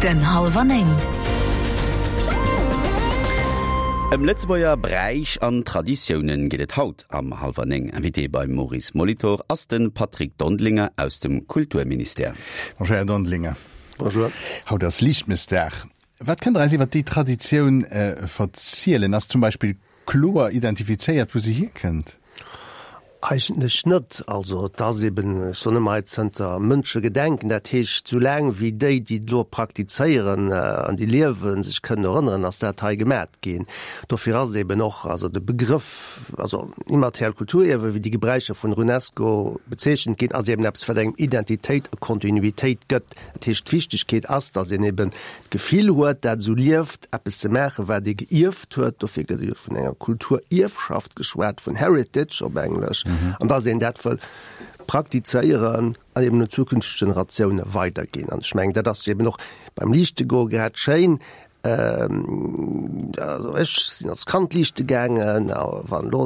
Den Hallwer 9. Ëm Lëtzebuerger Bräich an Traditiounen geet et haut am Hallwer 9. Invité beim Maurice Molitor ass de Patrick Dondelinger aus dem Kulturministère. Bonjour Här Dondelinger. Bonjour. Haut ass Liichtmëssdag. Wat kënnt Der eis iwwer déi Traditioun verzielen? Ass zum Beispill kloer identifizéiert, wou se hierkënnt? Eigentlech net. Also et ass eben, ech soen ëmmer hei, zënter Mënschegedenken, dat heescht sou laang wéi déi, déi et elo praktizéieren an déi liewen, sech kënnen erënneren, ass dat hei gemat ginn. Dofir ass eben och also de Begrëff, also immateriellt Kulturierwe wéi déi Gebräicher vun der UNESCO bezeechent ginn, ass eben eppes wat engem Identitéit a Kontinuitéit gëtt. Dat heescht d'Wichtegkeet ass, datt een eben d'Gefill huet, dat esou lieft, eppes ze maachen, wat ee geierft huet. Dofir gëtt jo vun enger Kulturierfschaft geschwat, vun Heritage op Englesch, an dass een dat wëll praktizéieren an eben un zukünfteg Generatioune weiderginn. An ech mengen, dat ass jo eben och beim Liichtegoe grad schéin. Also ech sinn als Kand liichte gaangen, a wann elo,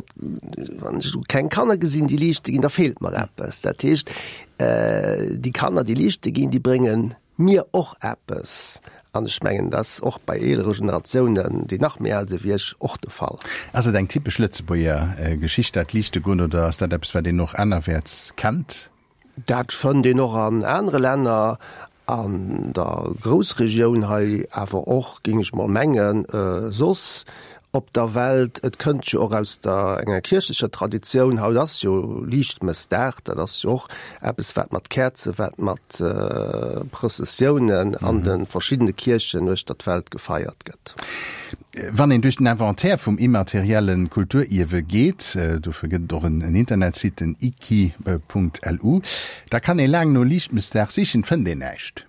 wann ech elo keng Kanner gesinn, déi liichte ginn, da feelt mer eppes. Dat heescht, déi Kanner, déi liichte ginn, déi bréngen mir och eppes. An ech mengen, dat ass och bei eelere Generatiounen, déi nach méi al si wéi ech, och de Fall. Ass et eng typesch Lëtzebuerger Geschicht, dat Liichtegoen, oder ass dat eppes, wat een och anerwäerts kennt? Dat fënnt een och an anere Länner, an der Groussregioun hei, awer och, géing ech mol mengen, soss op der Welt. Et kënnt jo och aus der enger kierchlecher Traditioun. Haut ass jo Liichtmëssdag, dat ass jo och eppes wat mat Käerzen, wat mat Prëssessiounen an de verschiddene Kierchen uechter d'Welt gefeiert gëtt. Wann een duerch den Inventaire vum immaterielle Kulturierwe geet, dofir gëtt et och en Internetsite, den iki.lu, da kann ee laang no Liichtmëssdag sichen, fënnt een näischt.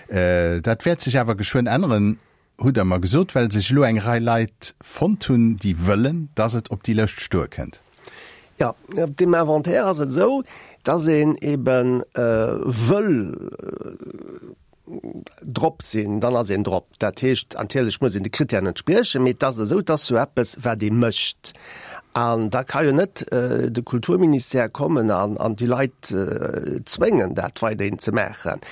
Dat wäert sech awer geschwënn änneren. Hutt Der mer gesot, well sech elo eng Rei Leit fonnt hunn, déi wëllen, dass et op déi Lëscht stoe kënnt. Jo, op deem Inventaire ass et esou, dass een ebe wëll drop sinn, dann ass een drop. Dat heescht, natierlech muss een de Krittären entspriechen, mee et ass esou, et ass jo eppes, wat ee mécht. An da ka jo net de Kulturministère kommen an déi Leit zwéngen, dat weiderhin ze maachen.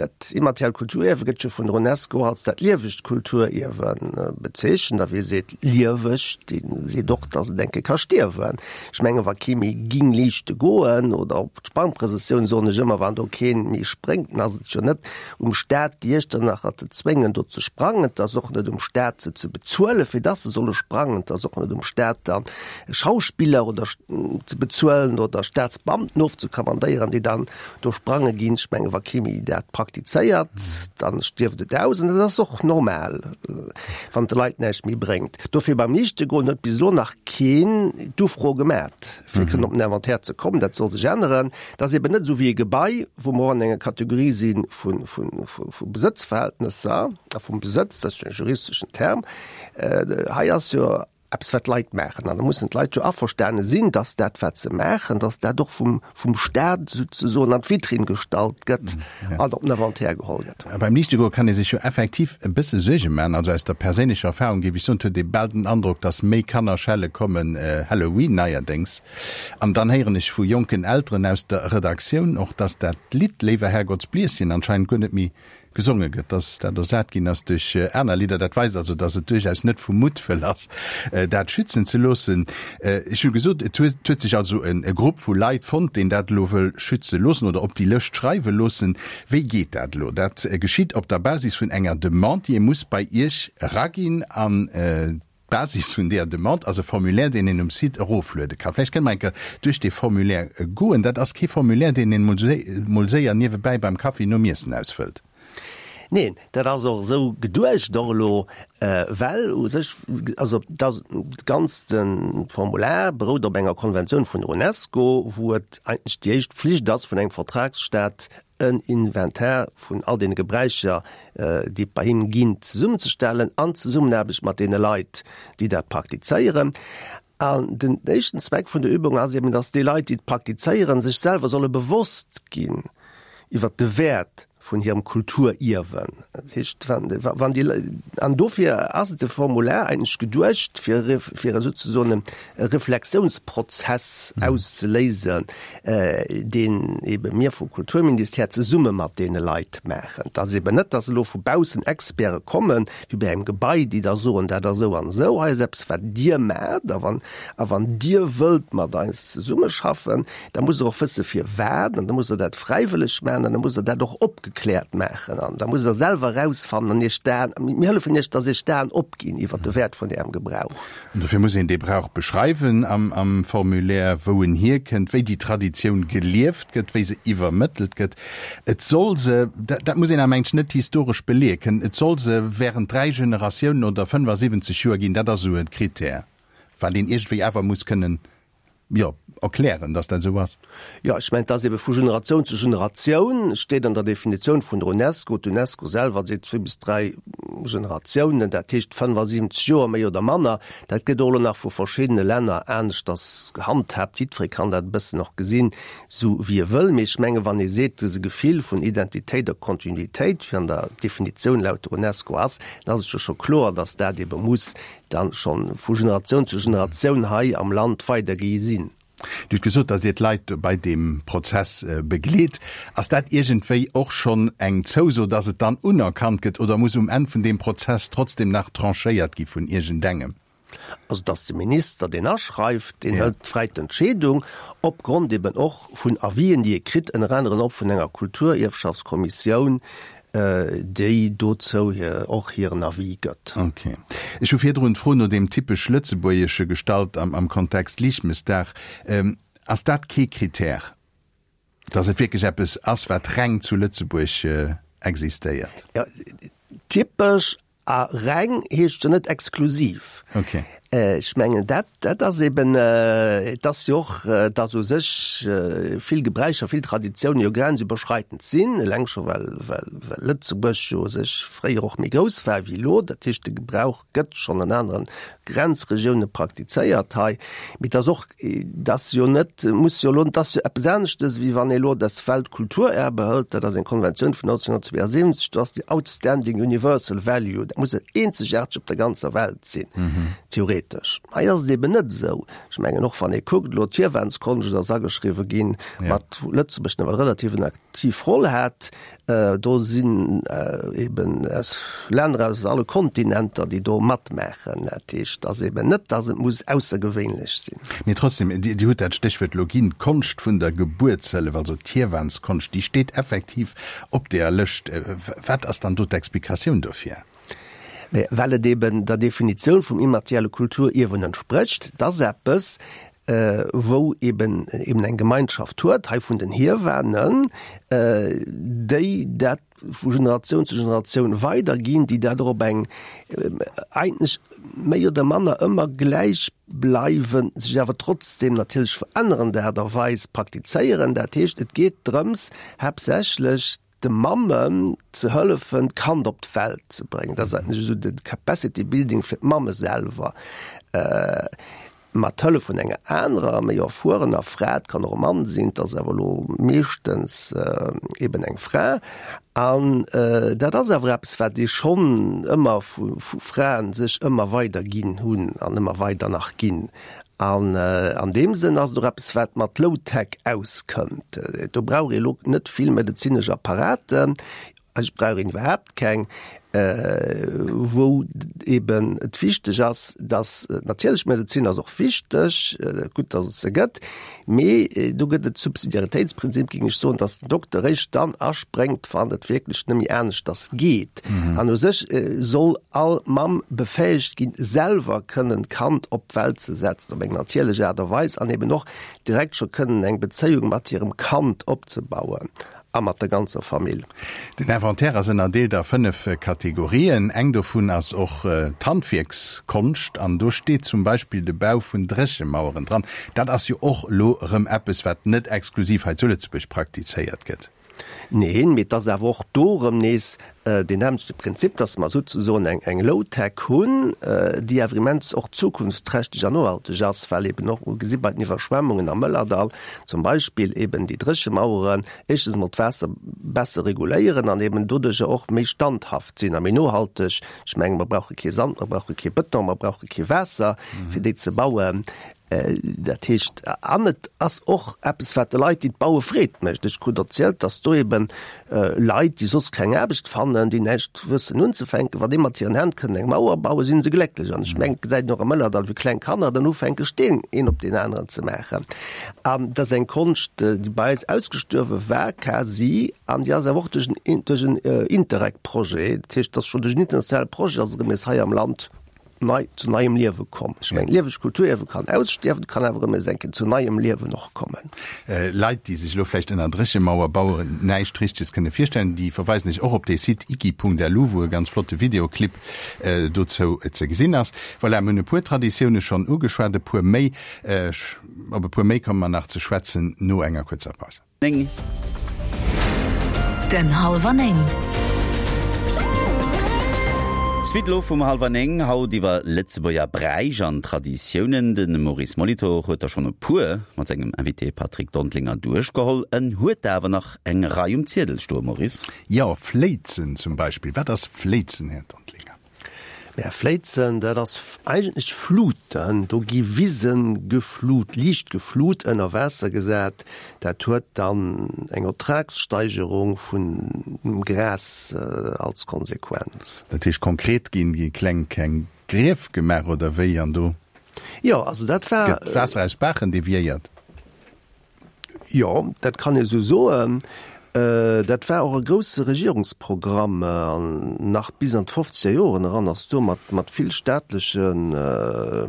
Dat immateriellt Kulturierwe gëtt jo vun der Unesco als dat liewegt Kulturierwe bezeechent. A wie seet lieweg, dee seet och, datt et eng Kéier ka stierwen. Ech menge wa kee méi ging liichte goen oder op d'Sprangprëssessioun, soen ech ëmmer, wann do kee méi spréngt, dann ass et jo net um Staat, déi Iechternacher ze zwéngen, do ze sprangen. Et ass och net um Staat, se ze bezuelen, fir dass se solle sprangen. Et ass och net um Staat, dann Schauspiller oder ze bezuelen oder Staatsbeamten ofzekommandéieren, déi dann do sprange ginn. Ech menge wa kee méi dat praktizéiert, dann stierft et aus. An dat ass och normal, wann et de Leit näischt méi bréngt. Dofir beim Liichtegoen huet bis elo nach keen d'Ufro gemat, fir kënnen op den Inventaire ze kommen. Dat soll sech änneren. Et ass eben net esou wéi e Gebai, wou mer och an enger Kategorie si vu Besëtzverhältnesser a vum Besëtz, dat ass jo e juristeschen Term. Hei ass jo eppes, wat d'Leit maachen. An da mussen d'Leit jo averstane sinn, dass dat, wat se maachen, dass dat och vum, vum Staat souzesoen an d'Vitrinn gestallt gëtt an op den Inventaire geholl gëtt. Beim Liichtegoe kann ee sech jo effektiv e bësse Suerge maachen. Also aus der perséinlecher Erfahrung géif ech soen, et huet ee bal den Androck, dass méi Kanner schelle kommen, Halloween neierdéngs. An dann héieren ech vu jonken Elteren aus der Redaktioun och, dass dat Lidd Léiwer Herrgottsblieschen anscheinend guer net méi gesonge gëtt, dass dat ersat ginn ass duerch aner Lidder. Dat weist also, dass et duerchaus net vu Muttwëll ass, dat schützen ze loossen. Ech hu gesot, et huet sech also e Grupp vu Leit fonnt, deen dat elo wëll schütze loossen oder op déi Lëscht schreiwe loossen. Wéi geet dat elo? Dat geschitt op der Basis vun enger Demande, déi ee muss bei Iech eraginn. An D'Basis vun deeër Demande ass e Formulaire, deen een um Site erofluede ka. Vläicht kënne mer eng Kéier duerch dee Formulaire goen. Dat ass kee Formulaire, deen een mol séier niewebäi beim Kaffi nom Iessen ausfëllt. Neen, dat ass och esou geduecht och elo, well u sech, also dat ganzt Formular berout op enger Konventioun vun der UNESCO, wou et eigentlech déi éischt Pflicht ass vun engem Vertragsstaat, en Inventar vun all deene Gebräicher, déi et bei him ginn, zesummenzestellen, an Zesummenaarbecht mat deene Leit, déi dat praktizéieren. An den éischten Zweck vun der Übung ass eben, dass déi Leit, déi et praktizéieren, sech selwer solle bewosst ginn iwwert de Wäert. Vun hirem Kulturierwen. Dat heescht, wann déi, an dofir ass de Formular eigentlech geduecht, fir, fir souzesoen e Reflexiounsprozess auszeléisen, deen ebe mir vum Kulturministère zesumme mat deene Leit maachen. Et ass eben net, dass elo vu baussen Experte kommen, wéi bei engem Gebai, déi da soen, dat ass esou an esou, hei ass eppes, wat Dir maacht, a wann, a wann Dir wëllt mat eis zesummeschaffen, Da musst Der och wësse firwat, an da musst Der dat fräiwëlleg maachen, an da musst Der dat och opgekläert maachen, an da musst Der selwer erausfannen an Iech d'Aen, mir hëllefen Iech, dass Iech d'Aen opginn iwwert de Wäert vun Ärem Gebrauch. An dofir muss een dee Brauch beschreiwen am am Formulaire, wou en hierkënnt, wéi déi Traditioun gelieft gëtt, wéi se iwwermëttelt gëtt. Et soll se, dat dat muss een awer mengen ech net historesch beleeë kënnen, et soll se während 3 Generatiounen oder 75 Joer ginn, dat ass esou e Krittär, wat een iergendwéi awer muss kënnen jo, erklären, dass dat esou ass. Jo, ech mengen, et ass ebe vu Generatioun zu Generatioun, et steet an der Definitioun vun der UNESCO, d'UNESCO selwer seet zwee bis dräi Generatiounen, dat heescht 75 Joer méi oder manner. Dat gëtt och elo nach vu verschiddene Länner aneschters gehandhaabt. Jiddweree kann dat e bëssen och gesinn, esou wéi e wëll. Mee ech menge wann ee seet, dëse Gefill vun Identitéit a Kontinuitéit, wéi an der Definitioun laut der UNESCO ass, dann ass et jo scho kloer, dass dat ebe muss dann schonn vu Generatioun zu Generatioun hei am Land weidergi sinn. Dir hutt gesot, datt Dir d'Leit bei deem Prozess begleet. Ass dat iergendwéi och schonn eng Zouso, datt et dann unerkannt gëtt oder muss um Enn vun deem Prozess trotzdem nach tranchéiert gi vun iergendengem? Also et ass de Minister, deen aschreift, deen hëlt fräi d'Entscheedung, opgrond eben och vun Avisen, déi e kritt, ënner aneren och vun enger Kulturierfschaftskommissioun, déi dozou och hiren Avis gëtt. Ok. Ech hu virdrun d'Fro no deem typesch Lëtzebuergesche gestallt am Kontext Liichtmëssdag. Ass dat kee Krittär, dass et wierklech eppes ass, wat reng zu Lëtzebuerg existéiert? Jo, typesch A reng heescht jo net exklusiv. Okay. Ech mengen, dat, dat ass eben, et ass jo och, dass u sech vill Gebräicher, vill Traditiounen jo grenzüberschreitend sinn, eleng scho well, well, well Lëtzebuerg jo u sech fréier och méi grouss war wéi elo. Dat heescht, de Gebrauch gëtt schonn an anere Grenzregioune praktizéiert hei. Mee et ass och Et ass jo net, muss jo elo, et ass jo eppes aneschtes, wéi wann ee elo das Weltkulturerbe hëlt, dat ass eng Konventioun vun 1972, do ass déi outstanding universal value, dat muss eenzegaarteg op der ganzer Welt sinn, theoretesch. Hei ass et eben net esou. Ech mengen och, wann ee kuckt elo, d'Hiewanskonscht ass ageschriwwe ginn, mat wou Lëtzebuerg nawell relativ en aktiv Roll hat. Do sinn eben aus Länner aus alle Kontinenter, déi do matmaachen. Dat heescht, et ass eben net, datt et muss aussergewéinlech sinn. Mee trotzdem, Dir hutt dat Stéchwuert elo ginn, d'Konscht vun der Gebuertshëllef, also d'Hiewanskonscht, déi steet effektiv op deeër Lëscht. Wat ass dann do d'Explikatioun dofir? Mä well et eben der Definitioun vum immaterielle Kulturierwen entsprécht, et ass eppes, wou eben eben eng Gemeinschaft huet, hei vun den Hiewanen, déi dat vu Generatioun zu Generatioun weiderginn, déi dat och op eng eigentlech méi oder manner ëmmer gläichbleiwend, sech awer trotzdem natierlech verännerend Aart a Weis praktizéieren. Dat heescht, et geet drëms haaptsächlech, de Mammen ze hëllefen, d'Kand op d'Welt ze bréngen. Dat ass eigentlech esou de Capacity Building fir d'Mamme selwer, mat Hëllef vun enger anerer, méi erfuerener Fra, et kann och e Mann sinn, et ass awer elo meeschtens eben eng Fra. An dat ass awer eppes, wat ee schonn ëmmer vu Fraen sech ëmmer weider ginn hunn an ëmmer weider nach ginn. An an deem Sënn ass et och eppes, wat mat Low-Tech auskënnt. Do brauch ee lo net vill medezinesch Apparaten, eigentlech brauch een iwwerhaapt keng, wou eben et wichteg ass, dass, natierlech d'Medezin ass och wichteg, gutt, dass et se gëtt, mee do gëtt et Subsidiaritéitsprinzip, géing ech soen, dass den Dokter eréischt dann aspréngt, wann et wierklech net méi aneschters geet. An u sech soll all Mamm befäegt ginn, selwer kënnen d'Kand op d'Welt ze setzen, op eng natierlech Aart a Weis, an eben och direkt scho kënnen eng Bezéiung mat hirem Kand opzebauen a mat der ganzer Famill. Den Inventaire ass ënnerdeelt a 5 Kategorien. Eng dovun ass och d'Handwierkskonscht an do steet zum Beispill de Bau vun Dréchemaueren dran. Dat ass jo och elo erëm eppes, wat net exklusiv hei zu Lëtzebuerg praktizéiert gëtt. Neen, mee et ass awer och do erëm nees deen nämmlechte Prinzip, dass mer souzesoen eng, eng Low-Tech hunn, déi awer immens och zukunftsträchteg an nohalteg ass, well eben och, gesi bei den Iwwerschwemmungen am Mëllerdall zum Beispill, eben déi Dréchemaueren éischtens emol d'Waasser besser reguléieren an eben doduercher och méi standhaft sinn a méi nohalteg. Ech menge mer brauche kee Sand, mer brauche kee Bëton, mer brauche kee Waasser, fir déi ze bauen. Dat heescht, an et ass och eppes, wat de Leit, déi et baue Freed mécht. Ech krut erzielt, datt do ebe Leit, déi soss keng Aarbecht fannen, déi näischt wëssen unzefänken, wa déi mat hiren Hänn kënnen eng Mauer bauen, si se glécklech. An ech mengen, et gesäit een och am Mëllerdall, wéi kleng Kanner dann ufänke Steen een op deen aneren ze maachen. An dat ass eng Konscht, déi bei eis ausgestuerwe war quasi, an déi ass awer och duerch en, duerch en Interreg-Projet, dat heescht, et ass schonn duerch en internationale Projet ass erëm nees hei am Land nei, zu neiem Liewe komm. Ech mengen, lieweg Kulturierwe kann ausstierwen, kann awer erëm nees eng Kéier zu neiem Liewen och kommen. Leit, déi sech elo vläicht ënner Dréchemauer bauen näischt Richteges kënne virstellen, déi verweisen ech och op dee Site iki.lu, wou e ganz flotte Videoclip dozou ze gesinn ass. Voilà, mir hunn e puer Traditioune schonn ugeschwat, e puer méi, op e puer méi komme mer nach ze schwätzen no enger kuerzer Paus. 9. Den Halwer 9. Suite elo vum Halwer 9, haut iwwer Lëtzebuerger Bräich an Traditiounen. De Maurice Molitor huet der schonn e puer mat sengem Invité Patrick Dondlinger duerchgeholl. En huet der awer nach eng Rei um Ziedel stoen, Maurice. Jo, Fléizen zum Beispill. Wat ass Fléizen, Här Dondlinger? Mä Fléizen, dat ass eigentlech Fluten. Do gi Wise geflut, liicht geflut, ënner Waasser gesat. Dat huet dann eng Ertragssteigerung vun dem Gras als Konsequenz. Dat heescht konkret, gi kleng kleng Grief gemaach oder wéi an do Jo, also dat war. gëtt d'Waasser aus Baachen deviéiert? Jo, dat kann ee sou soen. Dat war och e grousse Regierungsprogramm an nach bis an d'fofzeger Joren eran ass do mat mat vill staatleche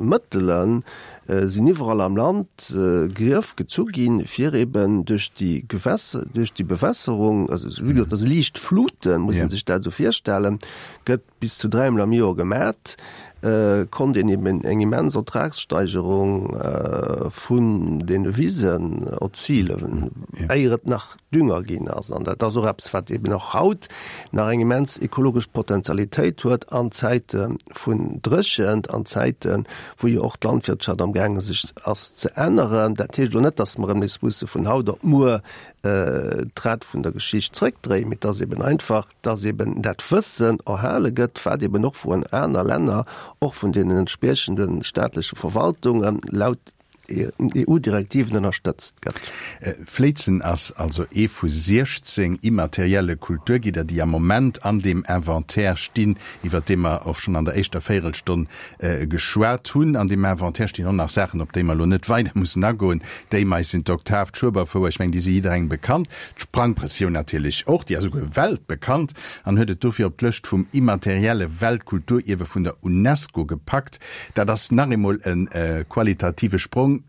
Mëttele sinn iwwerall am Land Grief gezu ginn, fir eben duerch déi Gewässer, duerch déi Bewässerung, also wéi gesot, dat si liicht Fluten, muss ee sech dat esou virstellen, gëtt bis zu dräimol am Joer gemat, konnt een eben eng immens Ertragssteigerung vun deene Wisen erzilen, éier et nach Dünger ginn ass. An dat ass och eppes, wat eben och haut nach eng immens ekologesch Potentialitéit huet an Zäite vun Dréchent, an Zäiten, wou jo och d'Landwirtschaft amgaange sech ass ze änneren. Dat heescht elo net, datt mer erëm nees musse vun haut op muer d'Rad vun der Geschicht zrëckdréien, mee et ass eben einfach, dass eben dat Wëssen erhale gëtt, wat eben och vun aner Länner, och vun deenen entspriechende staatleche Verwaltungen laut EU-Direktiven ënnerstëtzt gëtt. Fléizen ass also ee vu 16 immaterielle Kulturgidder, déi am Moment an deem Inventaire stinn, iwwert dee mer och schonn an der éischter Véirelstonn geschwat hunn. An deem Inventaire stinn och nach Saachen, op déi mer elo net weider mussen agoen. D'Éimeis sinn d'Oktav, d'Schueberfouer, ech mengen, déi si jidderengem bekannt. D'Sprangprëssioun natierlech och, déi ass esouguer weltbekannt an huet et dofir op d'Lëscht vum immaterielle Weltkulturierwe vun der UNESCO gepackt. Dat ass nach eemol e qualitative Sprong.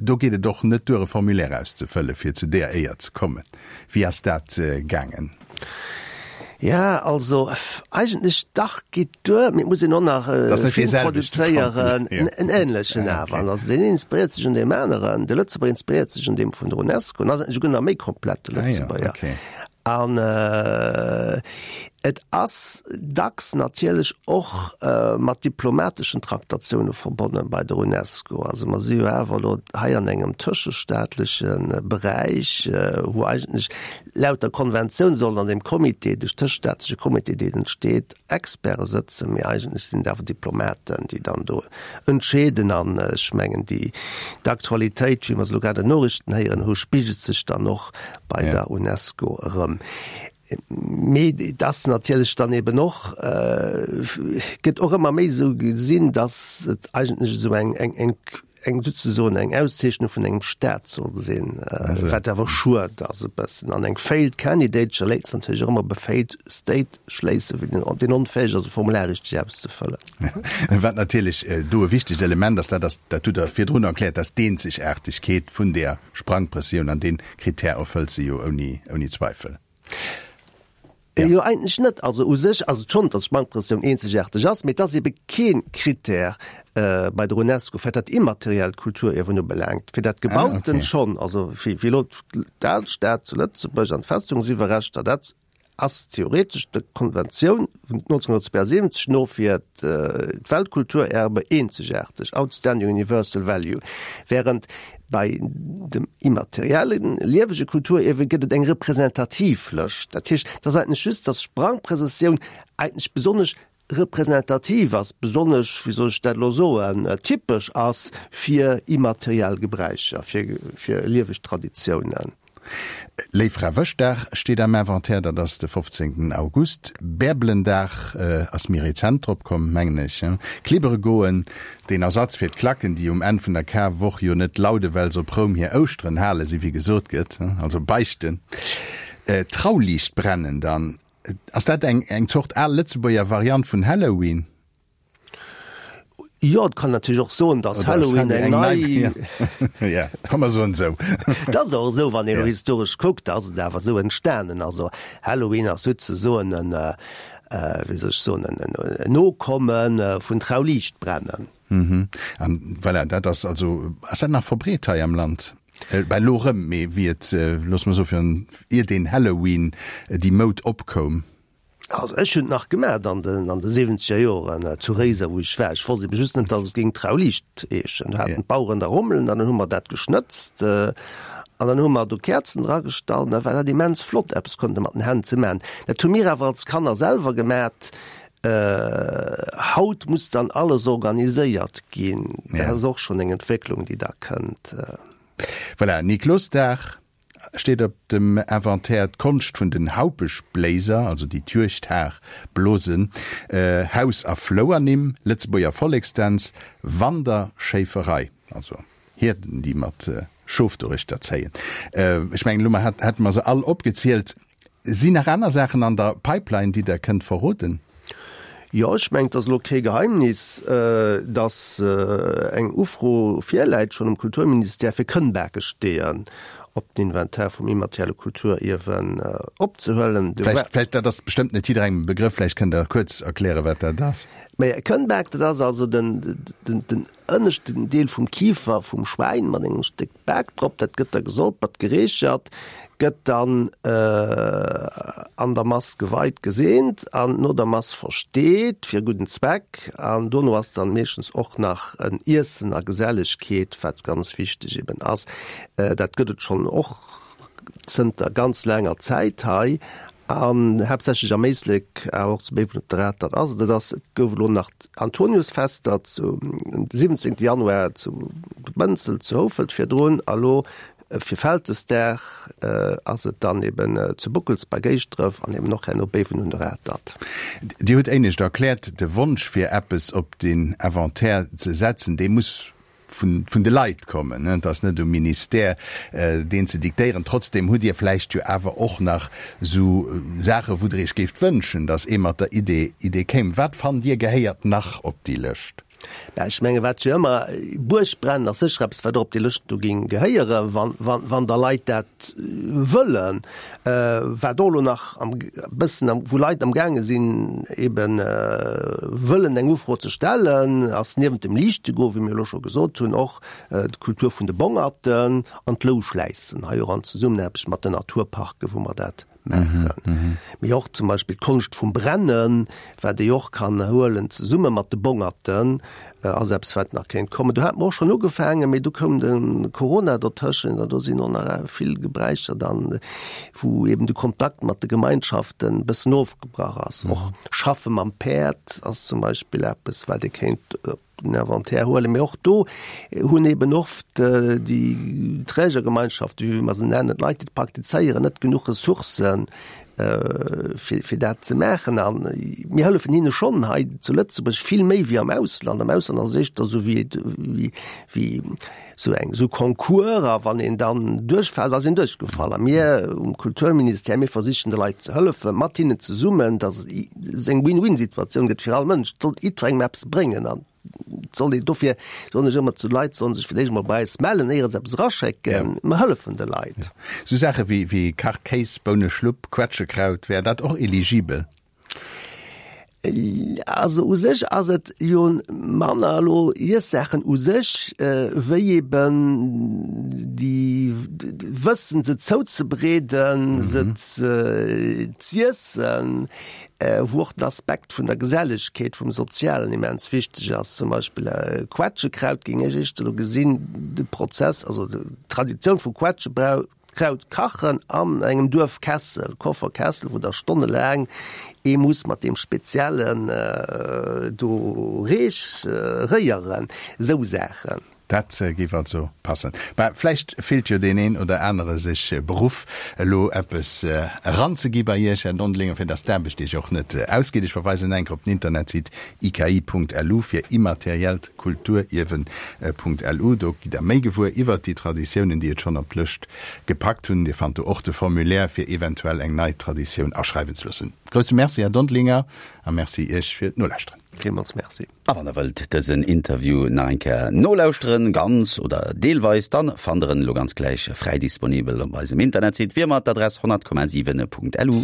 Do geet et och net duer, e Formulaire auszefëllen, fir zu deeër Éier ze kommen. Wéi ass dat gaangen? Ja, also eigentlech dach geet duer, mee et muss een och nach e Film produzéieren, en änlechen awer. An also deen een inspiréiert sech un deem aneren, de Lëtzebuerger inspiréiert sech un deem vun der UNESCO, en ass eigentlech esouguer nach méi komplett, de Lëtzebuerger. An et ass dacks natierlech och mat diplomateschen Traktatioune verbonne bei der UNESCO. Also mer si jo awer elo hei an engem tëschestaatleche Beräich, wou eigentlech Laut der Konventioun sollen an deem Comité, de tëschestaatleche Comité, deen entsteet, Experte sëtzen, mee eigentlech sinn et awer Diplomaten, déi dann do entscheeden. An ech mengen, déi d'Aktualitéit, wéi mer se elo grad an den Noriichten héieren hu, spigelt sech dann och bei der UNESCO erëm. Mee et ass natierlech dann eben och, gëtt och ëmmer méi esou gesinn, datt et eigentlech esou eng, eng, eng, eng souzesoen eng Auszeechnung vun engem Staat soll sinn, wat awer schued ass e bëssen. An eng failed candidature léisst natierlech och ëmmer op e failed state schléissen, wéi den, deen onfäeg ass e Formular richteg auszefëllen. Wat natierlech do e wichtegt Element ass, dat ass, dat hutt Der virdrun erkläert, dat ass d'Eenzegaartegkeet vun där Sprangprëssioun an dee Krittär erfëllt se jo ouni, ouni Zweifel. Jo, eigentlech net. Also u sech ass et schonn, datt d'Sprangprëssioun eenzegaarteg ass, mee et ass ebe kee Krittär bei der UNESCO, wat dat immateriellt Kulturierwen ubelaangt. Fir dat Gebauten schonn, also wéi elo d'Alstad zu Lëtzebuerg an d'Festungsiwwerreschter, dat ass theoretesch der Konventioun vun 1972 no fir d'Weltkulturerbe eenzegaarteg, outstanding universal value, während bei dem immateriellen, liewege Kulturierwe gëtt et eng representativ Lëscht. Dat heescht, et ass eigentlech just, datt d'Sprangprëssessioun eigentlech besonnesch representativ ass, besonnesch, wéi soll ech dat elo soen, typesch ass fir immateriell Gebräicher, fir, fir lieweg Traditiounen. Léiffrawëschdag steet am Inventaire, dat ass de 15 August. Bärbelendag ass méi rezent drop komm, mengen ech. Klibbere goen, deen Ersatz fir d'Klacken, déi um Enn vun der Karwoch jo net laude well se op Roum hir Ouschteren hale si wéi gesot gëtt, also beichten. Trauliicht brennen dann, Ass dat eng eng Zort al Lëtzebuerger Variant vun Halloween? Jo, et kann natierlech och soen, datt Halloween eng nei. Ja, komm mer soen esou. Et ass och esou, wann een elo historesch kuckt, ass et awer esou entstanen. Also Halloween ass souzesoen en, wéi soll ech soen, en Nokomme vun Trauliichtbrennen. An voilà, dat ass also, ass dat nach verbreet hei am Land? Bah, elo erëm, mee wéi et, loosse mer soen, virun, ier deen Halloween, déi Moud opkoum. Also ech hunn et nach gemaacht an den, an de siwwenzeger Joren zu Réiser, wou ech war. Ech wosst ebe just net, datt et géing Trauliicht heeschen. Do haten d'Baueren da Rommelen an dann hu mer dat geschnëtzt an dann hu mer do Käerzen dragestallt an da war dat immens flott, eppes konnte mat den Hänn ze maachen. Dat hu mir awer als Kanner selwer gemaacht. Haut muss dann alles organiséiert ginn. Dat ass och schonn eng Entwécklung, déi da kënnt. Voilà, Niklosdag steet op dem Inventaire, d'Konscht vun den Haupeschbléiser, also déi d'Juegdhar blosen, Haus a Flouernimm, Lëtzebuerger Volleksdänz, Wanderschéiferei, also Hierden, déi mat Schof doruechter zéien. Ech mengen, elo hätte mer se all opgezielt. Sinn nach aner Saachen an der Pipeline, déi Der kënnt verroden? Jo, ech mengen, et ass elo kee Geheimnis, datt eng Ufro virläit schonn um Kulturministère, fir Kënnbakesteeën op den Inventaire vum immaterielle Kulturierwen opzehuelen. Vläicht, vläicht, dat ass bestëmmt net jidderengem e Begrëff, vläicht kënnt Der kuerz erklären, wat dat ass. Mä e Kënnbak, dat ass also den, den, den ënneschten Deel vum Kifer vum Schwäin mat engem Stéck Bak drop, dat gëtt da gesolpert, gereechert, gëtt dann an der Mass geweit, geseent an no der Mass versteet fir e gudden Zweck. An dono ass dann meeschtens och nach en Iessen a Gesellegkeet, wat ganz wichteg eben ass. Dat gëtt et schonn och zënter ganz laanger Zäit hei an haaptsächlech am Éislek, awer och zu Béiwen op der Atert ass et. Et ass, et gouf elo nach d'Antoniusfester zu 17. Januar zu Bënzel zu Houfelt virdrun a lo fir Vältesdag ass et dann eben zu Bockels bei Géisdref an eben och herno Béiwen un der Atert. Dir hutt éinescht erkläert, de Wonsch fir eppes op den Inventaire ze setzen, dee muss vun de Leit kommen, et ass net um Ministère deen ze diktéieren. Trotzdem hutt Dir vläicht jo awer och nach esou Saache wou Der Iech géift wënschen, datt ee mat der Idee Idee kéim. Wat fannt Dir gehéiert nach op déi Lëscht? Mä ech menge wat jo ëmmer, Buergbrennen ass sécher eppes wat och op déi Lëscht do géing gehéieren, wann wann wann da Leit dat wëllen. Wat och elo nach am bëssen am, wou Leit am gaange sinn eben wëllen eng Ufro ze stellen, ass niewent dem Liichtegoen, wéi mir elo scho gesot hunn, och d'Kultur vun de Bongerten an d'Louschläissen, hei och an Zesummenaarbecht mat den Naturparken, wou mer dat maachen. Mee och zum Beispill d'Konscht vum Brennen, wat ee och kann huelen zesumme mat de Bongerten, ass eppes wat nach kéint kommen. Do hate mer och schonn ugefaangen, mee du koum de Corona dotëschent an do sinn och nach vill Gebräicher dann, wou eben de Kontakt mat de Gemeinschaften e bëssen ofgebrach ass. Och Schaffe mam Päerd ass zum Beispill eppes, wat ee kéint op den Inventaire huelen. Mee och do hunn eben oft déi Trägergemeinschaften, wéi mer se nennen, d'Leit, déi et praktizéieren, net genuch Ressourcen, fir, fir dat ze maachen. A mir hëllefen hinne schonn hei zu Lëtzebuerg vill méi wéi am Ausland. Am Ausland ass et éischter esou wéi, wéi, wéi esou eng, esou Concours, a wann een dann duerchfält, ass een duerchgefall. A mir um Kulturministère, mir versichen de Leit ze hëllefen, mat hinnen zesummen, datt et eng Win-win-Situatioun gëtt fir all Mënsch. Et soll jiddwerengem eppes bréngen. An. Soll een dofir soen ech ëmmer zu Leit, sollen sech fir d'éischt emol bei eis mellen, éier se eppes eraschécken. Mer hëllefen de Leit. Sou Saache wéi wéi Kachkéis, Bouneschlupp, Quetschekraut, wär dat och eligibel? Also u sech ass et jo manner elo Iessaachen u sech, wéi eben déi wëssen se zouzebereeden, se z'iessen, wou och den Aspekt vun der Gesellegkeet, vum Sozialen immens wichteg ass. Zum Beispill Quetschekraut géing ech éischter elo gesinn, de Prozess, also d'Traditioun vu Quetschekraut kachen an engem Duerfkessel, Kofferkessel, wou da stonnelaang ee muss mat deem speziellen do Reech réieren, esou Saachen. Dat géif also passen. Bah, vläicht fillt jo deen een oder anere sech beruff, elo eppes eranzegi bei Iech, Här Dondelinger, fir dass d'Aarbecht Iech och net ausgeet. Ech verweisen enk op den Internetsite iki.lu fir immateriellt Kulturierwen.lu. Do gitt Der méi gewuer iwwert déi Traditiounen, déi et schonn op d'Lëscht gepackt hunn. Dir fannt do och de Formulaire, fir eventuell eng nei Traditioun aschreiwen ze loossen. Grousse Merci, Här Dondelinger, a Merci Iech fir d'Nolauschteren. Villmools Merci. A wann der wëllt dësen Interview nach eng Kéier nolauschteren, ganz oder deelweis, dann fannt der en elo ganz gläich fräi disponibel op eisem Internetsite, wéi ëmmer d'Adress 100,7.lu.